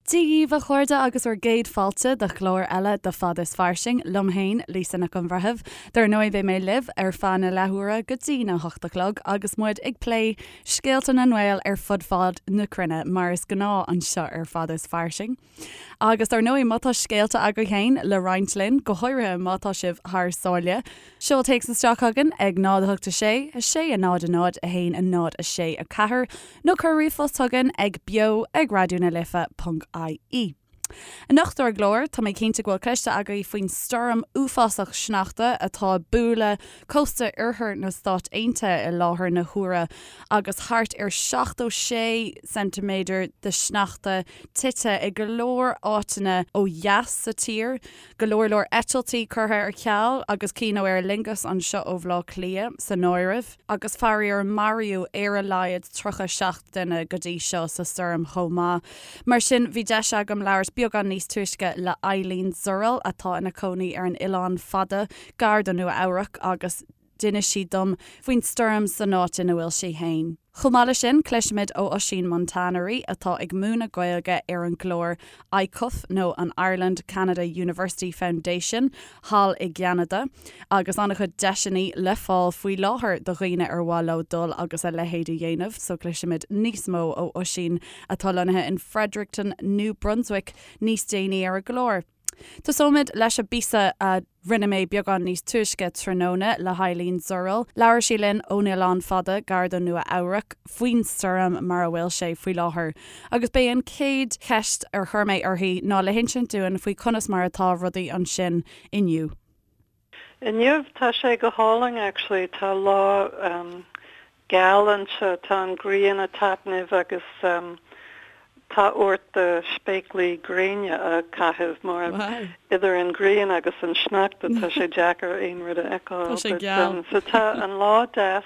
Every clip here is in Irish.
Dia dhaoibh a chairde agus bhur gcéad fáilte do chlár eile de Fad is Fairsing, liom féin, Lisa Nic an Bhreithimh. Dar ndóigh beidh mé libh ar feadh na leathuaire go dtí na hocht a chlog agus muid ag plé scéalta na nGael ar fud fad na cruinne, mar is gnáth anseo ar Fad is Fairsing. Agus dar ndóigh má tá scéalta agaibh féin le roinnt linn, go háirithe má tá sibh thar sáile, Seol téacs isteach chugainn ag 0 8 6 6 0 0 1 0 6 4 nó cuir ríomhphost chugainn ag beo ag raidió na life ponc ie. Anocht ar an gclár, tá mé cinnte go bhfuil cloiste agaibh faoin stoirm uafásach sneachta atá ag bualadh cósta oirthear na Stát Aontaithe i láthair na huaire agus thart ar 76 ceintiméadar de shneachta tite i go leor áiteanna ó dheas sa tír. Go leor leor eitiltí curtha ar ceal agus cinn ó Aer Lingus anseo ó Bhaile Átha Cliath san áireamh agus faraor maraíodh ar a laghad 37 duine go dtí seo sa stoirm chomh maith. Mar sin bhí deis agam labhairt beagán níos túisce le Eileen Zurell atá ina cónaí ar an Oileán Fada gar do Nua Eabhrac agus D'inis sí dom faoin stoirm san áit ina bhfuil sí fhéin. Chomh maith leis sin, cloisfimid ó Oisín Montanari atá ag múineadh Gaeilge ar an gclár ICUF nó an Ireland Canada University Foundation thall i gCeanada agus an-chuid deiseanna le fáil faoi láthair do dhaoine ar mhaith leo dul agus a leithéid a dhéanamh so cloisfimid níos mó ó Oisín atá lonnaithe in Fredericton, New Brunswick níos déanaí ar an gclár. Tosóimid leis an bpíosa a rinne mé beagán níos túisce tráthnóna le hEileen Zurell. Labhair sí linn ón Oileán Fada, gar do Nua Eabhrac, faoin stoirm mar a bhfuil sé faoi láthair. Agus b'é an chéad cheist ar chuir mé uirthi ná le hinsint dúinn faoi conas mar atá rudaí ansin inniu. Inniu tá sé go hálainn actually, tá lá geal anseo, tá an ghrian ag taitneamh agus tá ort do spéaclaí gréine a chaitheamh mar idir an ghrian agus an sneachta tá sé deacair aon rud a fheiceáil. Tá sé geal. So tá an lá deas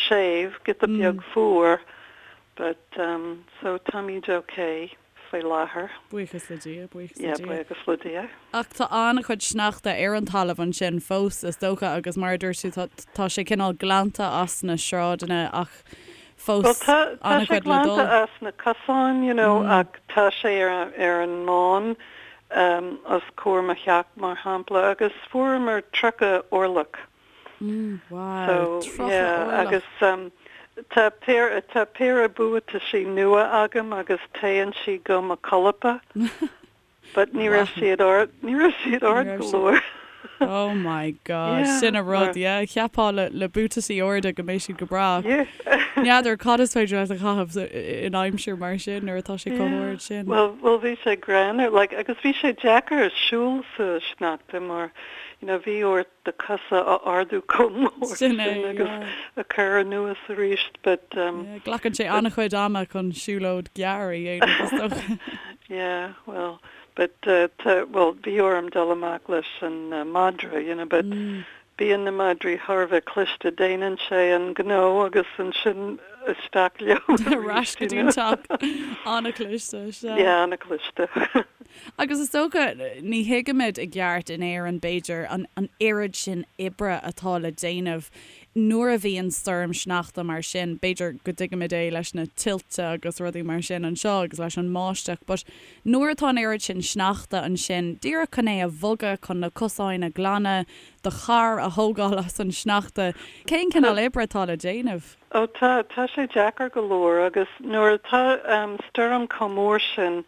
séimh, giota beag fuar but so táimid okay. faoi láthair. Buíochas le Dia, buíochas le Dia. Yeah, buíochas le Dia. Ach tá an-chuid sneachta ar an talamh ansin fós, is dócha, agus mar a dúirt tú, tá, tá sé cineál glanta as na sráideanna ach fós Well, tá, tá sé an-chuid le dul. glanta as na cosáin, you know, ach tá sé ar, ar an mbán um, os comhair mo theach, mar shampla, agus fuaireamar 30 orlach. Wow, So, 30 yeah, orlach. agus um, tá péire, tá péire buataisí nua agam agus téann sí go mo cholpa, but ní raibh siad ard, ní raibh siad Ní ard raibh go siad. leor. Oh my God, Yeah, sin an rud, mar, yeah, cheapfá le, le buataisí arda go mbeidh siad go breá. yeah. N'fheadar cad is féidir leat a chaitheamh in aimsir mar sin nuair atá sé chomh Yeah. hard sin. Well, well bhí sé greannmhar, like, agus bhí sé deacair siúl sa sneachta mar, you know, bhí ort do chosa a ardú chomh mór Sin sin é, agus yeah. a chur anuas arís but um Yeah, glacann sé but an-chuid ama chun siúlóid ghearr a dhéanamh is dócha. yeah, well, but uh tá, well, bhí orm dul amach leis an uh madra, you know, but Mm. bíonn na madraí thar a bheith cliste, déanann sé an gnó agus ansin isteach leo Ar ais arís, go you dtí an know. teach. An-chliste, sea. Yeah, an-chliste. Agus is dócha, ní thuigimid i gceart in Éirinn, b'fhéidir, an an oiread sin oibre atá le déanamh nuair a bhíonn stoirm sneachta mar sin. B'fhéidir go dtuigimid é leis na tuilte agus rudaí mar sin anseo agus leis an mbáisteach, but nuair atá an oiread sin sneachta ansin, díreach chun é a bhogadh, chun na cosáin a ghlanadh, do charr a thógáil as an sneachta, cén cineál oibre atá le déanamh? Ó tá, tá sé deacair go leor agus nuair atá stoirm chomh mór sin,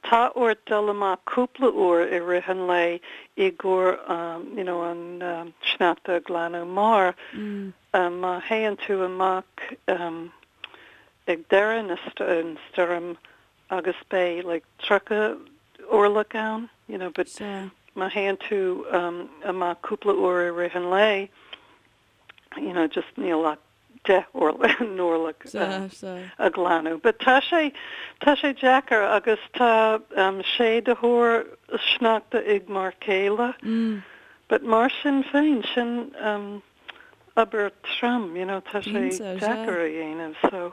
tá ort dul amach cúpla uair i rith an lae i gcomhair you know an sneachta a ghlanadh mar má théann tú amach ag deireadh na an stoirm agus beidh like 30 orlach ann you know but má théann tú amach cúpla uair i rith an lae, you know, just níl ach 10 n-orlach a ghlanadh. But tá sé, tá sé deacair agus tá séiditheoir sneachta ag m'fhear céile. But mar sin féin, sin obair trom, you know, tá sé deacair a dhéanamh so.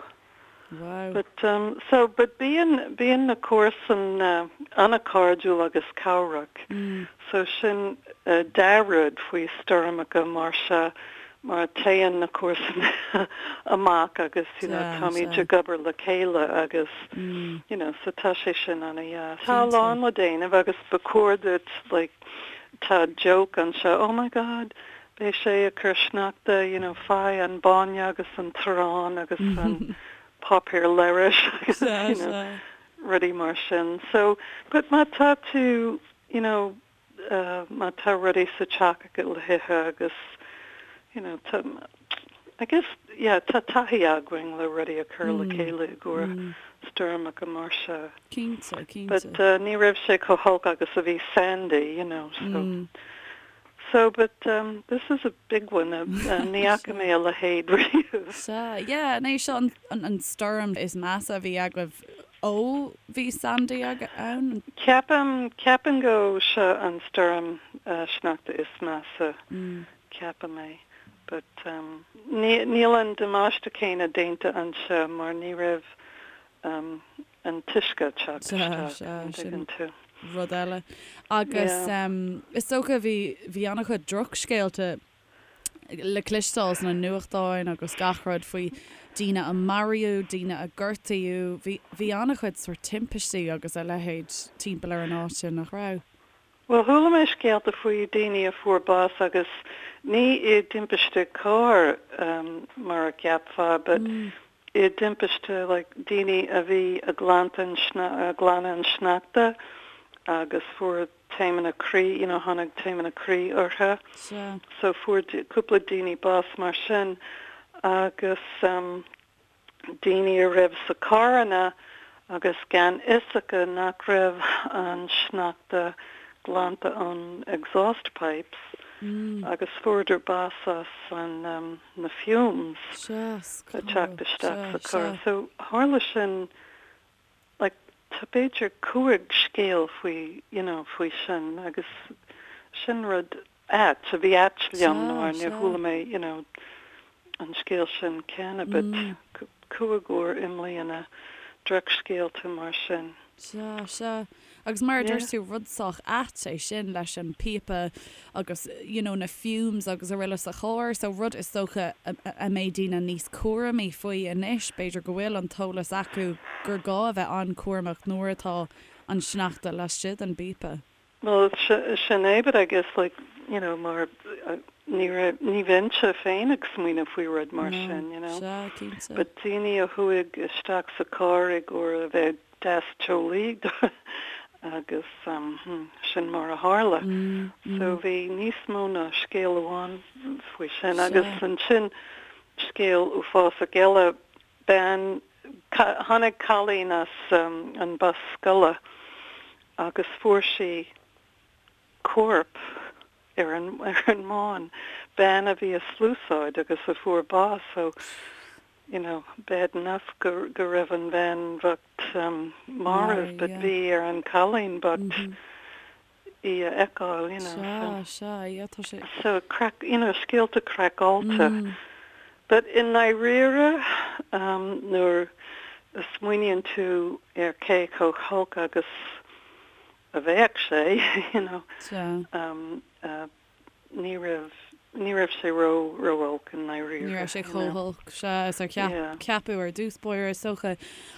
Wow. But um so but bíonn bíonn na comharsain an-chairdiúil agus cabhrach so sin dea-rud faoi stoirmeacha mar seo. mar téann na comharsana amach agus you know táimid ag obair le chéile agus you know so tá sé sin ana-dheas. Tá a lán le déanamh agus ba chóir duit like tá joke anseo oh my god beidh sé ag cur sneachta you know faigh an bainne agus an t-arán agus an páipéar leithris agus you know rudaí mar sin so but má tá tú you know má tá rudaí sa teach agat le hithe agus you know tá I guess yeah tá taithí againn le rudaí a chur le chéile i gcomhair stoirmeacha mar seo. Cinnte, cinnte. But ní raibh sé chomh holc agus a bhí Sandy you know so so but this is a big one ní fhaca mé a leithéid riamh. Sea, yeah, an é seo an stoirm is measa a bhí agaibh Ó bhí Sandy ann? Ceapaim, ceapaim go seo an stoirm sneachta is measa, ceapaim é. But níl an damáiste céanna déanta anseo mar ní raibh an t-uisce ag teacht isteach, an dtuigeann tú. Rud eile. Agus is dócha bhí, bhí an-chuid drochscéalta le cloisteáil sna nuachtáin agus gach rud faoi daoine a maraíodh, daoine a gortaíodh. Bhí, bhí an-chuid sórt timpistí agus a leithéid timpeall ar an áit sin, nach raibh? Bhuel, chuala mé scéalta faoi daoine a fuair bás agus ní i dtimpiste cairr mar a cheapfá but i dtimpiste like daoine a bhí ag glanadh ag glanadh an sneachta agus fuair taomanna croí, you know, tháinig taomanna croí orthu. Sea. So fuair cúpla daoine bás mar sin agus daoine a raibh sa carranna agus gan fhios acu nach raibh an sneachta glanta ón exhaust pipes agus fuaireadar bás as an na fumes Sea, ag teacht isteach sa carr. So tharla sin like tá b'fhéidir 5 scéal faoi you know faoi sin agus sin rud ait a bhí ait liom mar níor chuala mé you know an scéal sin cheana but 5 uair i mbliana drochscéalta mar sin. Sea, sea. Agus mar a dúirt tú, rud sách ait é sin leis an píopa agus you know na fumes agus araile sa charr, so rud is dócha a mbeidh daoine níos cúramaí faoi anois, b'fhéidir go bhfuil an t-eolas acu gur gá a bheith an-chúramach nuair atá an sneachta laistigh den bpíopa. Bhuel, sin é, but I guess like, you know, mar ní raibh, ní bheinnse féin ag smaoineamh faoi rud mar sin, you know. Sea, cinnte. But daoine a chuaigh isteach sa carr i gcomhair a bheith deas teolaí agus sin mar a tharla. So bhí níos mó ná scéal amháin faoi sin agus ansin scéal uafásach eile, bean, tháinig cailín as an bus scoile agus fuair sí corp ar an ar an mbán, bean a bhí ag sluasaid agus a fuair bás so you know bad enough go go raibh an bhean bhocht marbh but bhí ar an cailín bocht í a fheiceáil you know so. Sea, sea, yeah tá sé. So craic, you know scéalta craiceáilte but i ndáiríre nuair a smaoiníonn tú ar cé chomh holc agus a bheadh sé, you know. Sea. Ní raibh, ní raibh sé ró, ró-olc i ndáiríre. Ní raibh sé chomh holc, sea, is ar cheap, ceapadh ar dtús báire, is dócha.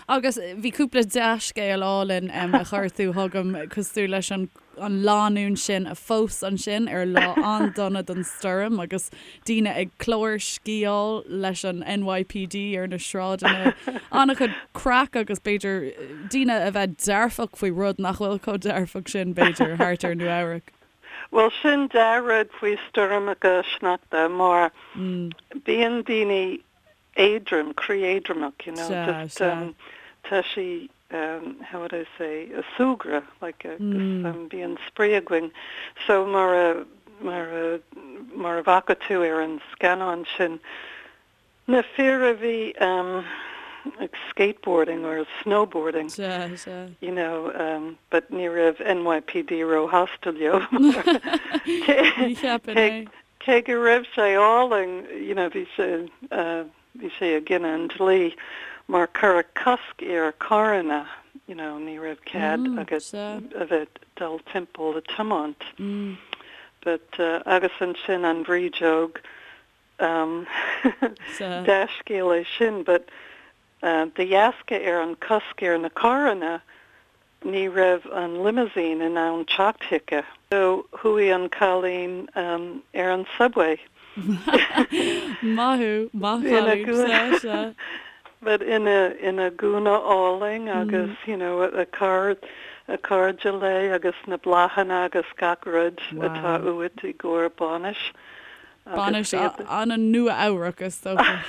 Agus bhí cúpla dea-scéal álainn a chuir tú chugam, cosúil leis an, an lánúin sin a phós ansin ar lá an-dona don stoirm agus daoine ag clársciáil leis an NYPD ar na sráideanna. An-chuid craic agus b'fhéidir daoine a bheith dearfach faoi rud nach bhfuil chomh dearfach sin, b'fhéidir, thart ar Nua Eabhrac. Bhuel, sin dea-rud faoi stoirmeacha sneachta mar bíonn daoine éadrom, croí éadromach, you know, just tá sí how would I say, a súgradh, like agus bíonn spraoi againn. So mar a, mar a, mar a bhfaca tú ar an scannán sin, na fir a bhí ag skateboarding or snowboarding, Sea, sea. you know, but ní raibh NYPD róshásta leo Ní cheapfainn é. Cé go raibh sé álainn, you know, bhí sé, bhí sé i gcoinne an dlí mar cuireadh cosc ar carranna, you know, ní raibh cead agat a bheith dul timpeall a tiomáint. But, agus ansin an bhrídeog. Um, dea-scéal é sin, but de dheasca ar an cosc ar na carranna, ní raibh an limousine in ann teacht chuici. So chuaigh an cailín ar an subway. Maith thú, maith an chailín, sea, sea. But ina, ina gúna álainn agus, you know, a car, a cairde léi agus na bláthanna agus gach rud atá uait i gcomhair bainis. Bainis an-Nua-Eabhrac, is dócha.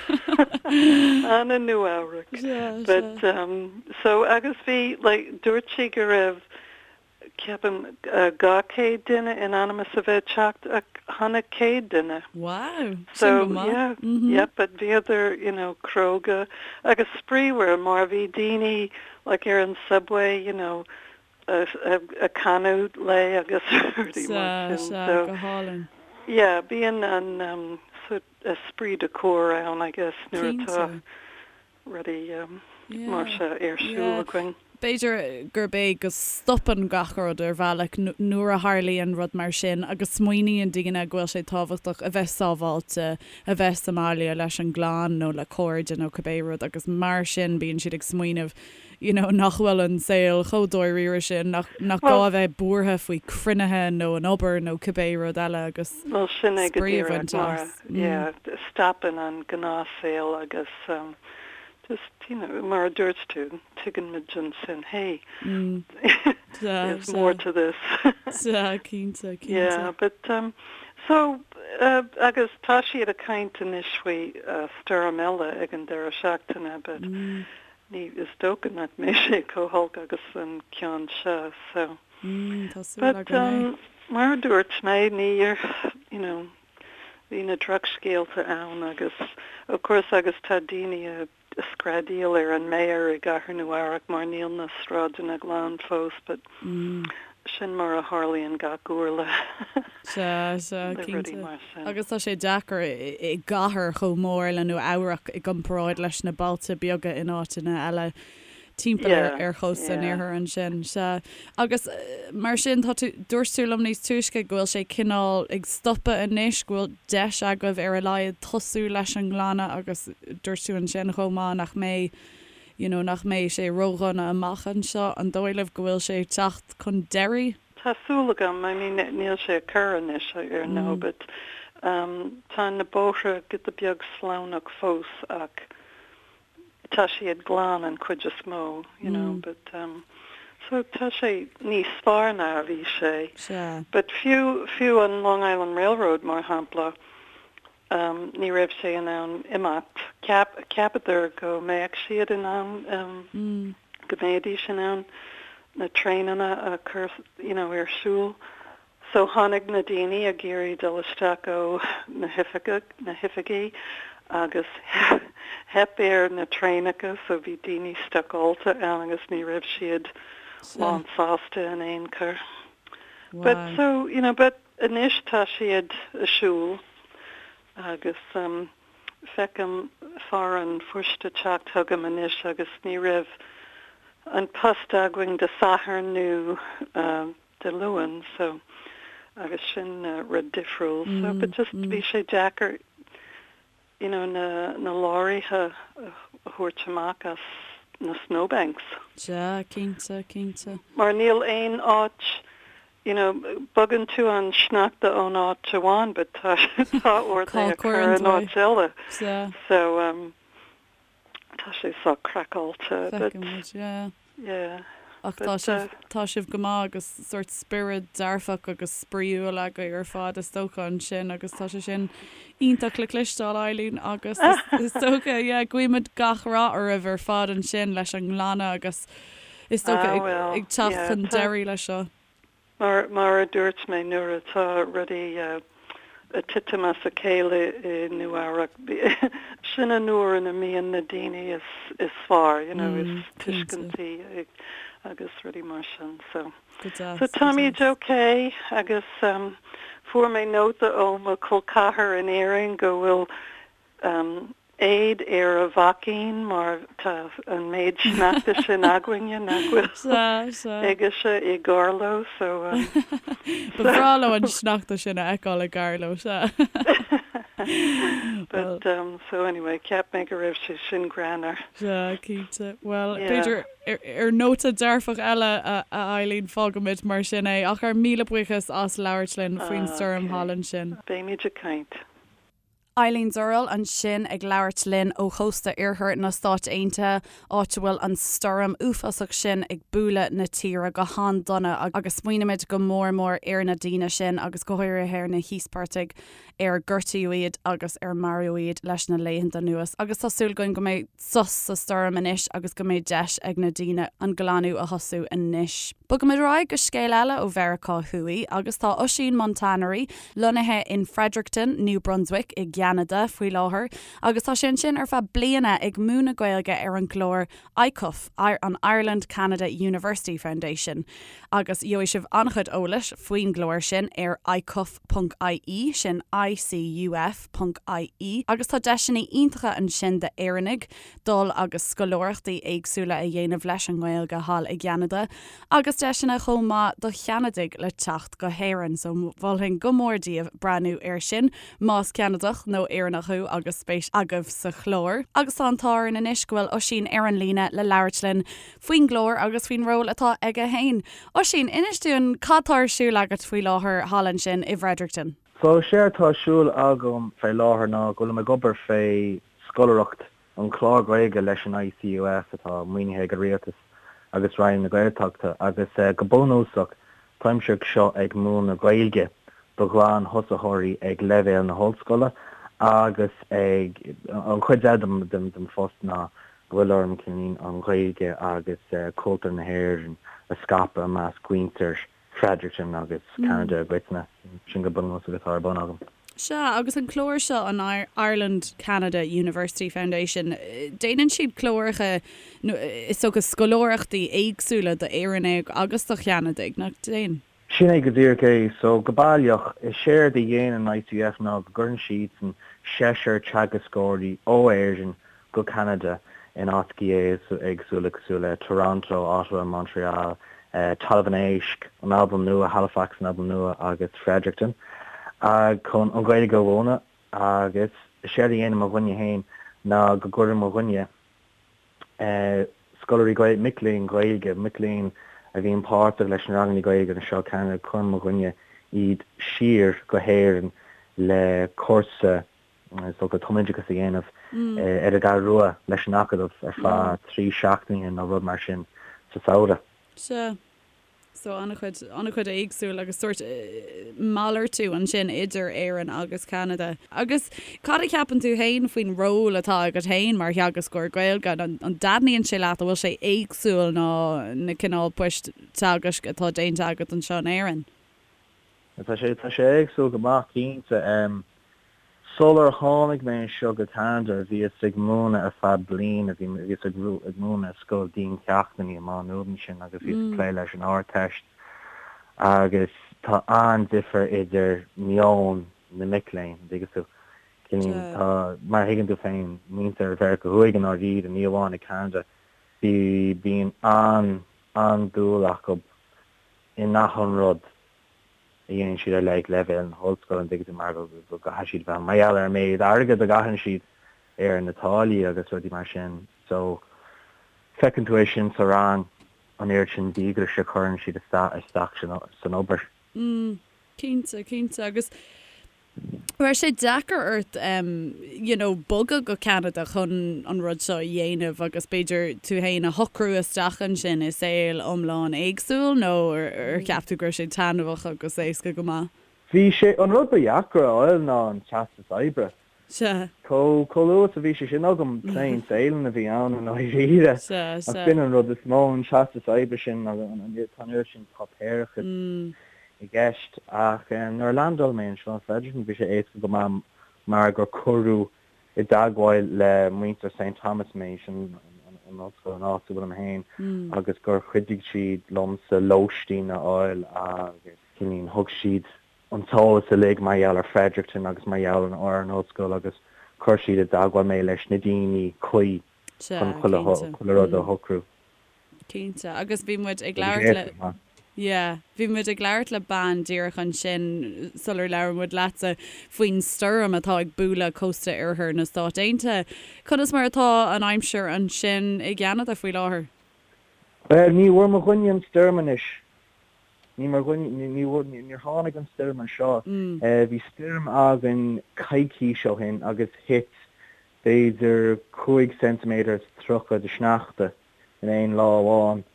An-Nua-Eabhrac. But, um, so, agus bhí, like, dúirt sí go raibh, ceapaim, 200 duine in ainm is a bheith ag teacht ach tháinig 100 duine. Wow! Sin go maith. So, yeah, yeah, but bhíodar, you know, cróga agus spraíúil mar bhí daoine, like, ar an subway, you know, ag canadh léi agus rudaí mar sin. Sea, sea, go hálainn. Yeah, bíonn an sort esprit de corps ann, I guess, nuair atá rudaí mar seo ar siúl againn. B'fhéidir gurb é go stopann gach rud ar bhealach nuair a tharlaíonn rud mar sin agus smaoiníonn daoine go bhfuil sé tábhachtach a bheith sábháilte, a bheith sa mbaile leis an gclann nó le cairde nó cibé rud agus mar sin bíonn siad ag smaoineamh you know nach bhfuil an saol chomh dáiríre sin, nach nach gá a bheith buartha faoi cruinnithe nó an obair nó cibé rud eile agus Bhuel sin é go spraoi a díreach bhaint mar as. yeah stopann an gnáthshaol agus um just you know mar a dúirt tú tuigeann muid ansin hey there's more to this. Sea, cinnte, cinnte. Yeah but um so uh agus tá siad ag caint anois faoi uh stoirm eile ag an deireadh seachtaine but Ní, is dócha nach mbeidh sé chomh holc agus an ceann seo, so. Mm, tá súil But, againn é. um, mar a dúirt mé, níor, you know, bhí na drochscéalta ann agus, of course, agus tá daoine ag screadaíl ar an mayor i gCathair Nua Eabhrac mar níl na sráideanna glan fós, but sin mar a tharlaíonn gach uair le Sea, sea, le rudaí cinnte. mar sin. Agus tá sé deacair i gcathair chomh mór le Nua Eabhrac i gcomparáid leis na bailte beaga in áiteanna eile timpeall ar Yeah, ar chósta an yeah. iarthair ansin. Sea. Agus mar sin, tá tú, dúirt tú liom níos túisce go bhfuil sé cineál ag stopadh anois, go bhfuil deis agaibh ar a laghad tosú leis an nglanadh agus dúirt tú ansin chomh maith nach mbeidh, you know, nach mbeidh sé ródhona amach anseo. An dóigh libh go bhfuil sé ag teacht chun deiridh? Tá súil agam, I mean níl sé ag cur anois ar ndóigh but um tá na bóithre giota beag sleamhnach fós ach tá siad glan an chuid is mó, you know, but um so tá sé níos fearr ná a bhí sé. Sea. But fiú, fiú an Long Island Railroad mar shampla, um ní raibh sé in ann imeacht. Cheap, cheapadar go mbeadh siad in ann um go mbeidís in ann na traenanna a chur you know ar siúl. So tháinig na daoine ag iarraidh dul isteach ó na hoifige, na hoifigí agus theip ar na traenacha so bhí daoine stucáilte ann agus ní raibh siad lán sásta in aon chor. But so, you know, but Anois tá siad ag siúl agus feicim fear an phoist ag teacht chugam anois agus ní raibh an post againn Dé Sathairn nó Dé Luain so agus sin rud difriúil so but just bhí sé deacair you know na na leoraithe a thabhairt amach as na snowbanks. Sea, cinnte, cinnte. Mar níl aon áit you know, bogann tú an sneachta ón áit amháin but tá tá ort é a chur in áit eile. Sea. So um tá sé sách craiceáilte but Feicfidh muid, yeah. yeah. Ach tá sibh, tá sibh go maith agus sórt spiorad dearfach agus spraíúil agaibh ar fad is dócha ansin agus tá sé sin iontach le cloisteáil Eileen agus is dócha yeah guímid gach rath oraibh ar fad ansin leis an nglanadh agus is dócha ag teacht chun deiridh leis seo. Mar, mar a dúirt mé, nuair atá rudaí ag titim as a chéile i Nua Eabhrac, sin an uair ina mbíonn na daoine is, is fearr, you know, is tuiscintí agus rudaí mar sin. So, so táimid ok agus fuair mé nóta ó mo chol ceathar in Éirinn go bhfuil éad ar a mhaicín mar tá an méid sneachta sin againne nach bhfuil aigesean i gCarló so. Ba bhreá leo an sneachta sin a fheiceáil i gCarló, sea. But um so anyway cheap mé go raibh sé sin greannmhar. Sea, cinnte. Bhuel, b'fhéidir ar nóta dearfach eile, a Eileen, fágfaimid mar sin é. Ach ár míle buíochas as labhairt linn faoin stoirm thall ansin. Beimid ag caint. Eileen Zurell ansin ag labhairt linn ó chósta iarthar na Stáit Aontaithe, áit a bhfuil an stoirm uafásach sin ag bualadh na tíre go han-dona agus smaoinímid go mór mór ar na daoine sin agus go háirithe ar na híospartaigh ar gortaíodh iad agus ar maraíodh iad leis na laethanta anuas agus tá súil againn go mbeidh sos sa stoirm anois agus go mbeidh deis ag na daoine an glanadh a thosú anois. Bogaimid ar aghaidh go scéal eile ó Mheiriceá Thuaidh agus tá Oisín Montanari lonnaithe in Fredericton, New Brunswick i gCeanada faoi láthair agus tá sé ansin ar feadh bliana ag múineadh Gaeilge ar an gclár ICUF, an Ireland Canada University Foundation, agus gheobhaidh sibh an-chuid eolais faoin gclár sin ar icuf ponc ie, sin ICUF ponc ie, agus tá deiseanna iontacha ansin d'Éireannaigh dul agus scoláireachtaí éagsúla a dhéanamh leis an nGaeilge thall i gCeanada, agus deiseanna chomh maith do Cheanadaigh le teacht go hÉirinn, so mholfainn go mór daoibh breathnú air sin más Ceanadach nó Éireannach thú agus spéis agaibh sa chlár. Agus tá an t-ádh orainn anois go bhfuil Oisín ar an líne le labhairt linn faoin gclár agus faoin ról atá aige féin. Oisín, inis dúinn cad tá ar siúl agat faoi láthair thall ansin i bhFredericton? So, séard tá ar siúl agam fé láthair ná go bhfuilim ag obair fé scoláireacht an chlár Gaeilge leis an ICUF atá maoinithe ag an Rialtas agus Roinn na Gaeltachta agus go bunúsach táimse anseo ag múineadh Gaeilge do ghlan-thosaitheoirí ag leibhéal na hollscoile agus ag an chuid eile den phost ná go bhfuil orm cineál an Ghaeilge agus cultúr na hÉireann a scaipeadh i measc mhuintir Fredericton agus Ceanada i gcoitinne. Sin go bunúsach atá ar bun agam. Sea, agus an clár seo, an Ireland Canada University Foundation, déanann siad cláracha, nó is dócha scoláireachtaí éagsúla d'Éireannaigh agus do Cheanadaigh, nach ndéanann? Sin é go díreach é. So, go baileach, is éard a dhéanann ICUF ná go gcuireann siadsan seisear teagascóirí ó Éirinn go Ceanada in áiteacha éagsúla cosúil le Toronto, Ottawa, Montreal, Talamh an Éisc, an Albain Nua, Halifax, an Albain Nua agus Fredericton chun an Ghaeilge a mhúineadh agus is éard a dhéanann mo Roinn féin ná go gcuireann mo Roinn scoláirí Gaeilge, mic léinn Ghaeilge, mic léinn a bhíonn páirteach leis na ranganna Gaeilge anseo i Ceanada, cuireann mo Roinn iad siar go hÉirinn le cúrsa is dócha tumoideachas a dhéanamh ar an gCeathrú Rua leis an Acadamh ar feadh 3 seachtaine nó rud mar sin sa samhradh. Sea. So an-chuid, an-chuid éagsúil agus sórt malartú ansin idir Éirinn agus Ceanada. Agus cad a cheapann tú féin faoin ról atá agat féin mar theagascóir Gaeilge? An dtaitníonn sé leat? An bhfuil sé éagsúil ná na cineál poist teagaisc atá déanta agat anseo in Éirinn? Tá sé, tá sé éagsúil go maith cinnte. Sular tháinig mé anseo go Ceanada bhíos ag múineadh ar feadh bliana, bhí, bhíos ag, ag múineadh i scoil diancheachtanna i Má Nuad ansin agus bhíos ag plé leis an Ardteist agus tá an-difear idir meon na mic léinn, an dtuigeann tú. Cineál, tá, mar a thuigeann tú féin, muintir Mheiriceá Thuaidh i ndáiríre, ní amháin i Ceanada, bí, bíonn an, an-dúil acu in achan rud a dhéanann siad ar like leibhéal na hollscoile, an dtuigeann tú, mar go gcaithfidh siad bheith, mar gheall ar an méid airgead a gcaitheann siad ar na táillí agus rudaí mar sin. So, feiceann tú é sin sa rang, an oiread sin díograis a chuireann siad isteach san obair. Mm, cinnte, cinnte. Agus Raibh sé deacair ort you know bogadh go Ceanada chun an rud seo a dhéanamh agus b'fhéidir tú fhéin a shocrú isteach ansin i saol iomlán éagsúil nó ar cheap tú go raibh sé taitneamhach agus éasca go maith? Bhí sé, an rud ba dheacra a fháil ná an teastas oibre. Sea. Chomh luath is a bhí sé sin agam, plain sailing a bhí ann i ndáiríre. Sea, Ach b'in an rud is mó, an teastas oibre sin agus tá an oiread sin páipéarachas i gceist. Ach nuair a landáil mé anseo in Fredericton bhí sé éasca go maith mar gur cuireadh i dteagmháil le muintir St Thomas mé, sin an ollscoil an áit a bhfuilim féin, agus gur chuidigh siad liomsa lóistín a fháil agus thug siad an t-eolas uilig mar gheall ar Fredericton agus mar gheall ar an ollscoil agus chuir siad i dteagmháil mé leis na daoine cuí chun chuile rud a shocrú. Cinnte. Agus bhí muid ag labhairt le. Yeah. Bhí muid ag labhairt le bean díreach ansin sular labhair muid leatsa faoin stoirm atá ag bualadh cósta oirthear na Stát Aontaithe. Conas mar atá an aimsir ansin i gCeanada faoi láthair? Bhuel, ní bhfuair mo dhuine an stoirm anois. Ní mar dhuine, ní bhfuair, níor tháinig an stoirm anseo. Bhí stoirm againn coicís ó shin agus thit b'fhéidir 5 ceintiméadar is 30 de shneachta in aon lá amháin.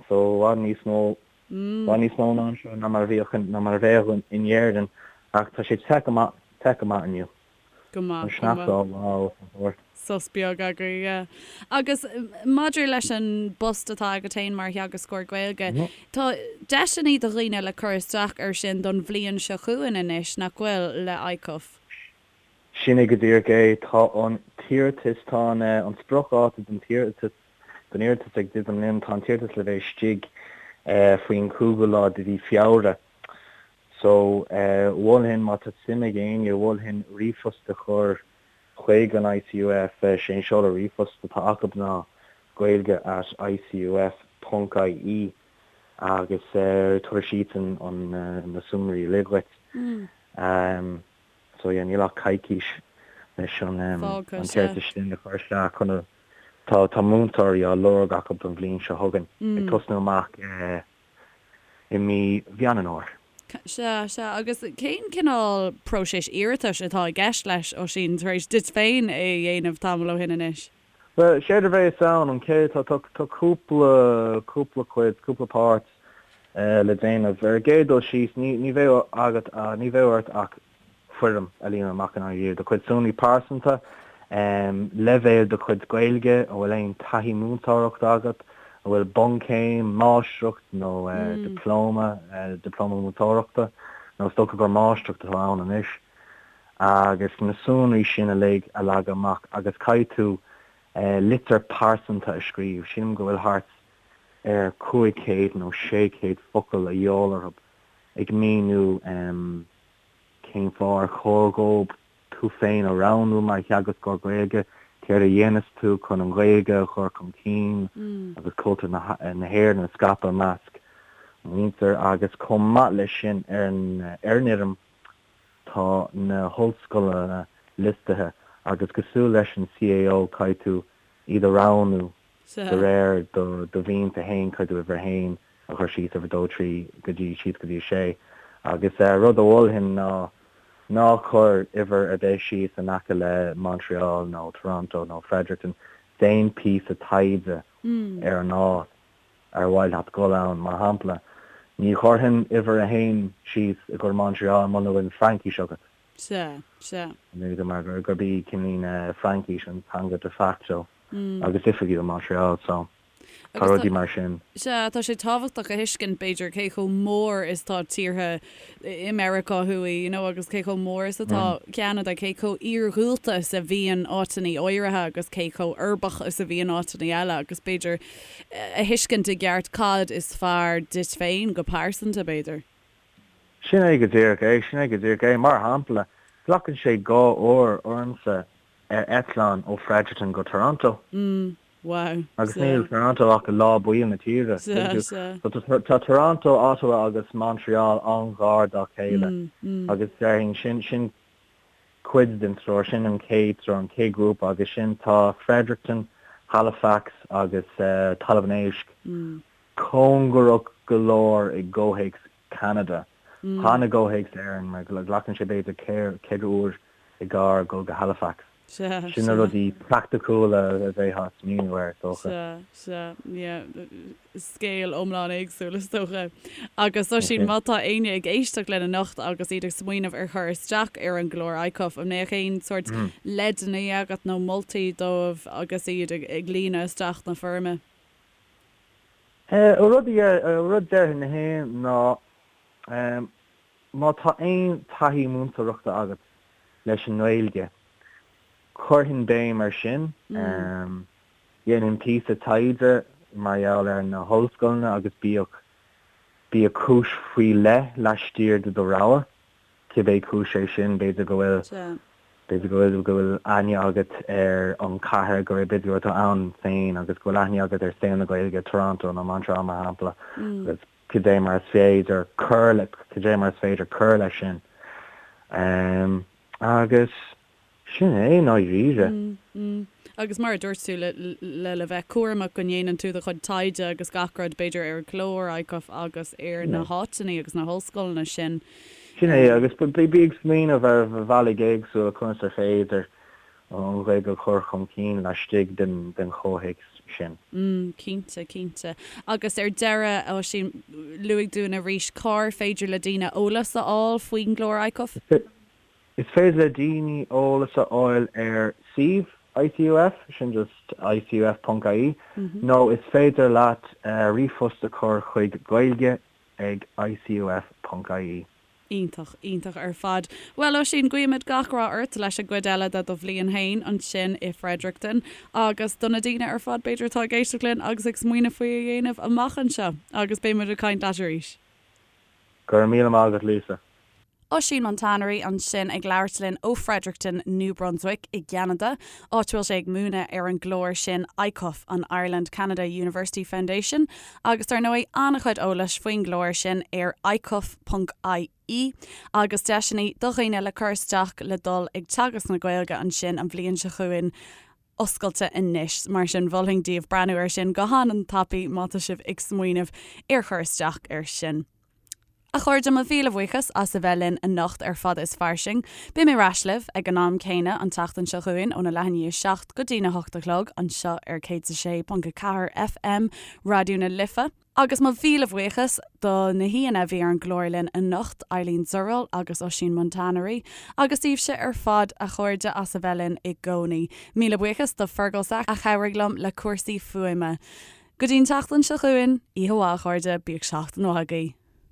So, i bhfad níos mó, i bhfad níos mó ná anseo ná mar a bhíodh, ná mar a bheadh in Éirinn. Ach tá sé te go maith, te go maith inniu. Go maith, go maith. Sos beag agaibh, yeah. Agus maidir leis an bpost atá agat féin mar theagascóir Gaeilge, tá deiseanna do dhaoine le cur isteach air sin don bhliain seo chugainn anois, nach bhfuil, le ICUF? Sin é go díreach é. Tá an t-iarratas, tá an an spriocdháta don t-iarratas, don iarratas ag druidim linn, tá an t-iarratas le bheith istigh faoin chúigiú lá de mhí Feabhra. So, mholfainn, má tá suim ag éinne, mholfainn ríomhphost a chur chuig an ICUF. Sé an seoladh ríomhphost atá acu ná gaeilge at icuf ponc ie agus tabharfaidh siadsan na sonraí uilig dhuit. So yeah, níl ach coicís leis an t-iarratas sin a chur isteach chun a, tá tá múinteoirí á lorg acu don bhliain seo chugainn, ag tosnú amach i mí Mheán an Fhómhair. Sea, sea. Agus cén cineál próiseas iarratais atá i gceist leis, Oisín, tar éis duit féin é a dhéanamh tamall ó shin anois? Bhuel, séard a bheas ann, an chéad, tá, tá, tá cúpla, cúpla cuid, cúpla páirt le déanamh. Ar an gcéad dul síos, ní, ní bheidh agat, ní bheidh ort ach foirm a líonadh amach i ndáiríre, do chuid sonraí pearsanta, leibhéal do chuid Gaeilge, an bhfuil aon taithí múinteoireachta agat, an bhfuil bunchéim, máistreacht nó dioplóma, dioplóma múinteoireachta, nó is dócha gur máistreacht atá ann anois, agus na sonraí sin uilig a leagadh amach agus caithfidh tú litir pearsanta a scríobh, sílim go bhfuil thart ar 500 nó 600 focal a dhíobháil orthu ag míniú cén fáth ar chóir dhóibh tú féin a roghnú mar theagascóir Gaeilge, céard a dhéanas tú chun an Ghaeilge a chur chun cinn agus cultúr na hÉireann a scaipeadh i measc muintir agus chomh maith leis sin ar an fhoirm tá na hollscoileanna liostaithe agus cosúil leis an CAO caithfidh tú iad a roghnú de réir do mhianta féin, caithfidh tú uimhir a haon a chur síos, uimhir a dó, trí go dtí síos go dtí a sé. Agus rud a mholfainn ná ná cuir uimhir ar bith síos in aice le Montreal nó Toronto nó Fredericton. Déan píosa taighde ar an áit ar mhaith leat dul ann. Mar shampla, ní chuirfinn uimhir a haon síos i gcomhair Montreal muna bhfuil Fraincis agat. Sea, sea. Mar gurb í cineál Fraincis an teanga de facto agus oifigiúil Montreal so tá rudaí mar sin. Sea, tá sé tábhachtach a thuiscint, b'fhéidir, cé chomh mór is tá tíortha i Meiriceá Thuaidh, you know, agus cé chomh mór is atá Ceanada, cé chomh iarghúlta is a bhíonn áiteanna áirithe agus cé chomh uirbeach is a bhíonn áiteanna eile agus b'fhéidir a thuiscint i gceart cad is fearr duit féin go pearsanta, b'fhéidir. Sin é go díreach é, sin é go díreach é. Mar shampla, glacann sé dhá uair ormsa ar eitleán ó Fredericton go Toronto. Wow. Agus níl Toronto ach i lár baill na tíre. Tá Toronto, Ottawa agus Montreal an-ghar dá chéile agus déarfainn sin sin cuid den treoir, sin an chéad treoir, an chéad ghrúpa agus sin tá Fredericton, Halifax agus Talamh an Éisc cóngarach go leor i gcomhthéacs Ceanada. Chan i gcomhthéacs Éireann mar glacann sé b'fhéidir 4 uair i gcarr dul go Halifax. Sin na rudaí praiticiúla a bheifeá ag smaoineamh air, is dócha. Sea, sea, yeah. Scéal iomlán éagsúil, is dócha. Agus Oisín, má tá éinne ag éisteacht linn anocht agus iad ag smaoineamh ar chur isteach ar an gclár ICUF, an mbeadh aon sórt leideanna agat nó moltaí dóibh agus iad ag líonadh isteach na foirme? Rud a déarfainn féin ná má tá aon taithí múinteoireachta agat leis an nGaeilge, chuirfinn béim air sin. Dhéanfainn píosa taighde mar gheall ar na hollscoileanna agus bíodh bíodh cúis faoi leith laistiar de do rogha. cibé cúis é sin, b'fhéidir go bhfuil, b'fhéidir go bhfuil, go bhfuil aithne agat ar an chathair, go bhfuil, b'fhéidir go bhfuil tú ann féin agus go bhfuil aithne agat ar saol na Gaeilge, Toronto nó Montreal mar shampla, agus. Cad é mar is féidir cur le, cad é mar is féidir cur leis sin. Agus sin é i ndáiríre. Agus mar a dúirt tú, le le le bheith cúramach go ndéanann tú do chuid taighde agus gach rud, b'fhéidir ar an gclár ICUF agus ar na háiteanna agus na hollscoileanna sin. Sin é, agus bí ag smaoineamh ar bhealaí éagsúla conas ar féidir an Ghaeilge a chur chun cinn laistigh den chomhthéacs sin. Cinnte, cinnte. Agus ar deireadh, Oisín, luaigh dúinn arís cár féidir le daoine eolas a fháil faoin gclár ICUF? Is féidir le daoine eolas a fháil ar suíomh ICUF, sin just icuf.ie, nó is féidir leat ríomhphost a chur chuig gaeilge ag icuf.ie. Iontach, iontach ar fad. Bhuel, Oisín, guímid gach rath ort leis an gcuid eile de do bhliain féin ansin i Fredericton agus do na daoine ar fad b'fhéidir atá ag éisteacht linn agus ag smaoineamh faoi a dhéanamh amach anseo. Agus beidh muid ag caint leat arís. Go raibh míle maith agat, Lisa. Oisín Montanari ansin ag labhairt linn ó Fredericton, New Brunswick i gCeanada, áit a bhfuil sé ag múineadh ar an gclár sin ICUF, an Ireland Canada University Foundation, Agus dar ndóigh, an-chuid eolais faoin gclár sin ar icuf.ie agus deiseanna do dhaoine le cur isteach le dul ag teagasc na Gaeilge ansin an bhliain seo chugainn oscailte anois. Mar sin, mholfainn daoibh breathnú air sin go han-tapaidh má tá sibh ag smaoineamh ar chur isteach air sin. A chairde, mo mhíle buíochas as a bheith linn anocht ar Fada is Fairsing. Beidh mé ar ais libh ag an am céanna an tseachtain seo chugainn óna leath i ndiaidh a 7 go dtína hocht a chlog anseo ar 106.4 FM Raidió na Life. Agus mo mhíle bhuíochas do na haíonna a bhí ar an gclár linn anocht, Eileen Zurell agus Oisín Montanari, agus daoibhse ar fad, a chairde, as a bheith linn i gcónaí. Míle buíochas do Fergal Sack a chabhraigh liom le cúrsaí fuaime. Go dtí an tseachtain seo chugainn, oíche mhaith a chairde, bíodh seachtain mhaith agaibh.